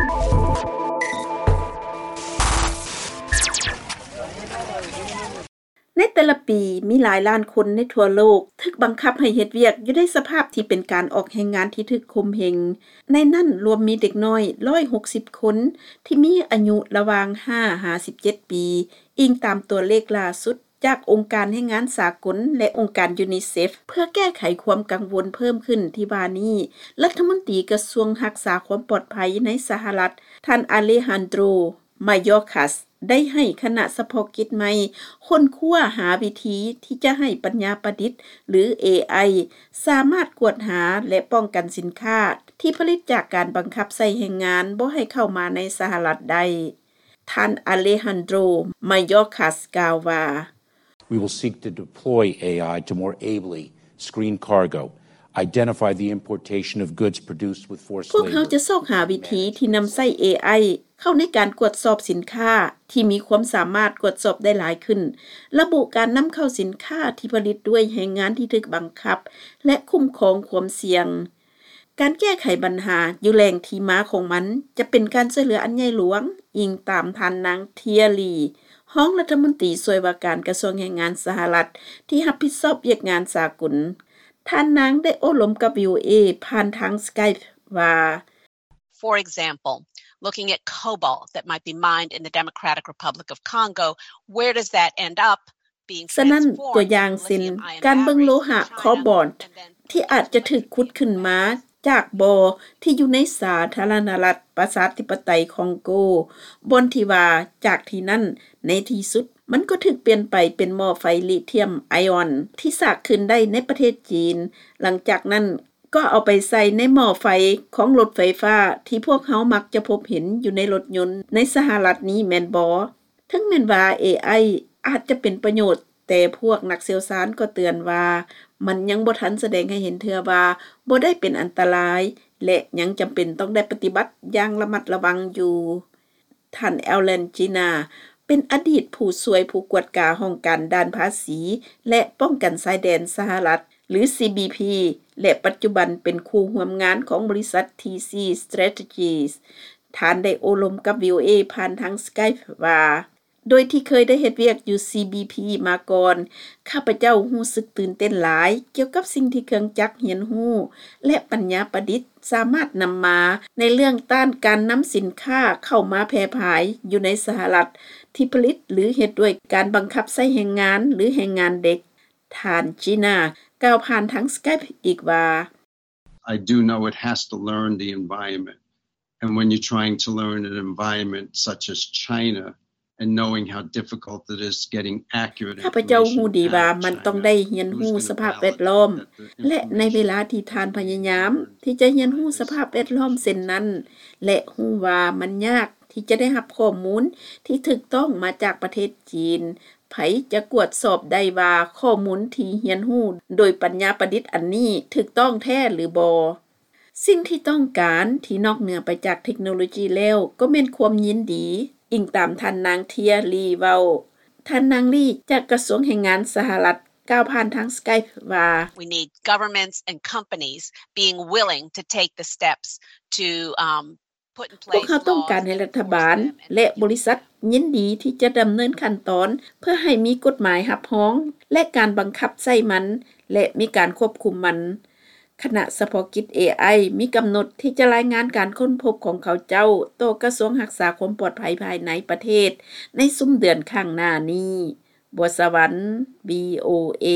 ໃນແຕ່ລະປີ, ມີຫຼາຍລ້ານຄົນໃນທົ່ວໂລກຖືກບັງຄັບໃຫ້ເຮັດວຽກຢູ່ໃນສະພາບທີ່ເປັນການອອກແຮງງານທີ່ຖືກຂົ່ມເຫງ. ໃນນັ້ນລວມມີເດັກນ້ອຍ ໜຶ່ງຮ້ອຍຫົກສິບຄົນ ທີ່ມີອາຍຸລະຫວ່າງ ຫ້າ ຫາ ສິບເຈັດປີ, ອີງຕາມຕົວເລກລ່າສຸດຈາກອົງການແຮງງານສາກົນ ແລະ ອົງການຢູນິເຊັຟ. ເພື່ອແກ້ໄຂຄວາມກັງວົນເພີ່ມຂຶ້ນທີ່ວ່ານີ້, ລັດຖະມົນຕີກະຊວງຮັກສາຄວາມປອດໄພໃນສະຫະລັດ, ທ່ານ ອາເລຮານໂດຣ ມາໂຍຄັສ ໄດ້ໃຫ້ຄະນະສະເພາະກິດໃໝ່ຄົ້ນຄວ້າຫາວິທີທີ່ຈະໃຫ້ປັນຍາປະດິດ ຫຼື ເອໄອ ສາມາດກວດຫາ ແລະ ປ້ອງກັນສິນຄ້າທີ່ຜະລິດຈາກການບັງຄັບໃຊ້ແຮງງານບໍ່ໃຫ້ເຂົ້າມາໃນສະຫະລັດໄດ້. ທ່ານ ອາເລຮານໂດຣ ມາໂຍຄັສ ກ່າວວ່າ, We will seek to deploy A I to more ably screen cargo, identify the importation of goods produced with forced labor. ພວກເຮົາຈະຊອກຫາວິທີທີ່ນຳໃຊ້ ເອໄອ ເຂົ້າໃນການກວດສອບສິນຄ້າທີ່ມີຄວາມສາມາດກວດສອບໄດ້ຫຼາຍຂຶ້ນ, ລະບຸການນຳເຂົ້າສິນຄ້າທີ່ຜະລິດດ້ວຍແຮງງານທີ່ຖືກບັງຄັບ ແລະ ຄຸ້ມຄອງຄວາມສ່ຽງ. ການແກ້ໄຂບັນຫາຢູ່ແຫຼ່ງທີ່ມາຂອງມັນຈະເປັນການຊ່ວຍເຫຼືອອັນໃຫຍ່ຫຼວງ, ອີງຕາມທ່ານນາງ ເທຍລີ ຮອງລັດຖະມົນຕີຊ່ວຍວ່າການກະຊວງແຮງງານສະຫະລັດ ທີ່ຮັບຜິດຊອບວຽກງານສາກົນ. ທ່ານນາງໄດ້ໂອ້ລົມກັບ ວີໂອເອ ຜ່ານທາງ Skype ວ່າ, For example, looking at cobalt that might be mined in the Democratic Republic of Congo, where does that end up being transformed into lithium ion batteries in China and then ສະນັ້ນ, ຕົວຢ່າງເຊັ່ນ ການເບິ່ງໂລຫະໂຄບອນທີ່ອາດຈະຖືກຂຸດຂຶ້ນມາຈາກບໍ່ທີ່ຢູ່ໃນສາທາລະນະລັດປະຊາທິປະໄຕຄອງໂກ, ບ່ອນທີ່ວ່າຈາກທີ່ນັ້ນໃນທີ່ສຸດມັນກໍຖືກປ່ຽນໄປເປັນໝໍ້ໄຟລິທຽມໄອອອນທີ່ສາກຄືນໄດ້ໃນປະເທດຈີນ, ຫຼັງຈາກນັ້ນ ກໍເອົາໄປໃສ່ໃນໝໍ້ໄຟຂອງລົດໄຟຟ້າທີ່ພວກເຮົາມັກຈະພົບເຫັນຢູ່ໃນລົດຍົນໃນສະຫະລັດນີ້ແມ່ນບໍ່? ເຖິງແມ່ນວ່າ ເອໄອ ອາດຈະເປັນປະໂຫຍດ, ແຕ່ພວກນັກຊ່ຽວຊານກໍເຕືອນວ່າ ມັນຍັງບໍ່ທັນສະແດງໃຫ້ເຫັນເທື່ອວ່າບໍ່ໄດ້ເປັນອັນຕະລາຍ ແລະ ຍັງຈຳເປັນຕ້ອງໄດ້ປະຕິບັດຢ່າງລະມັດລະວັງຢູ່. ທ່ານ ແອລແລນ ຈີນາ ເປັນອະດີດຜູ້ຊ່ວຍຜູ້ກວດກາຫ້ອງການດ່ານພາສີ ແລະ ປ້ອງກັນຊາຍແດນສະຫະລັດ ຫຼື ຊີບີພີ ແລະ ປັດຈຸບັນເປັນຄູ່ຮ່ວມງານຂອງບໍລິສັດ ທີຊີ Strategies. ທ່ານໄດ້ໂອ້ລົມກັບ ວີໂອເອ ຜ່ານທາງ Skype ວ່າ, ໂດຍທີ່ເຄີຍໄດ້ເຮັດວຽກຢູ່ ຊີບີພີ ມາກ່ອນ, ຂ້າພະເຈົ້າຮູ້ສຶກຕື່ນເຕັ້ນຫຼາຍກ່ຽວກັບສິ່ງທີ່ເຄື່ອງຈັກຮຽນຮູ້ ແລະ ປັນຍາປະດິດ ສາມາດນຳມາໃນເລື່ອງຕ້ານການນຳສິນຄ້າເຂົ້າມາແຜ່ຜາຍຢູ່ໃນສະຫະລັດ ທີ່ຜະລິດ ຫຼື ເຮັດດ້ວຍການບັງຄັບໃຊ້ແຮງງານ ຫຼື ແຮງງານເດັກ. ທ່ານ ຈີນາ ກ່າວຜ່ານທາງ Skype ອີກວ່າ, I do know it has to learn the environment, and when you're trying to learn an environment such as China, and knowing how difficult it is getting accurate information out of China, ຂ້າພະເຈົ້າຮູ້ດີວ່າມັນຕ້ອງໄດ້ຮຽນຮູ້ສະພາບແວດລ້ອມ ແລະ ໃນເວລາທີ່ທ່ານພະຍາຍາມທີ່ຈະຮຽນຮູ້ສະພາບແວດລ້ອມເຊັ່ນນັ້ນ ແລະ ຮູ້ວ່າມັນຍາກທີ່ຈະໄດ້ຮັບຂໍ້ມູນທີ່ຖືກຕ້ອງມາຈາກປະເທດຈີນ, ໃຜຈະກວດສອບໄດ້ວ່າຂໍ້ມູນທີ່ຮຽນຮູ້ໂດຍປັນຍາປະດິດອັນນີ້ຖືກຕ້ອງແທ້ຫຼືບໍ່? ສິ່ງທີ່ຕ້ອງການທີ່ນອກເໜືອໄປຈາກເທັກໂນໂລຈີແລ້ວ ກໍແມ່ນຄວາມຍິນດີ, ອີງຕາມທ່ານນາງ ເທຍລີ ເວົ້າ. ທ່ານນາງ ລີ ຈາກກະຊວງແຮງງານສະຫະລັດ ກ່າວຜ່ານທາງ Skype ວ່າ, We need governments and companies being willing to take the steps to, um, ພວກເຮົາຕ້ອງການໃຫ້ລັດຖະບານ ແລະ ບໍລິສັດຍິນດີທີ່ຈະດຳເນີນຂັ້ນຕອນເພື່ອໃຫ້ມີກົດໝາຍຮັບຮອງ ແລະ ການບັງຄັບໃຊ້ມັນ ແລະ ມີການຄວບຄຸມມັນ. ຄະນະສະເພາະກິດ ເອໄອ ມີກຳນົດທີ່ຈະລາຍງານການຄົ້ນພົບຂອງເຂົາເຈົ້າຕໍ່ກະຊວງຮັກສາຄວາມປອດໄພພາຍໃນປະເທດໃນຊຸມເດືອນຂ້າງໜ້ານີ້. ບົວສະຫວັນ ວີໂອເອ.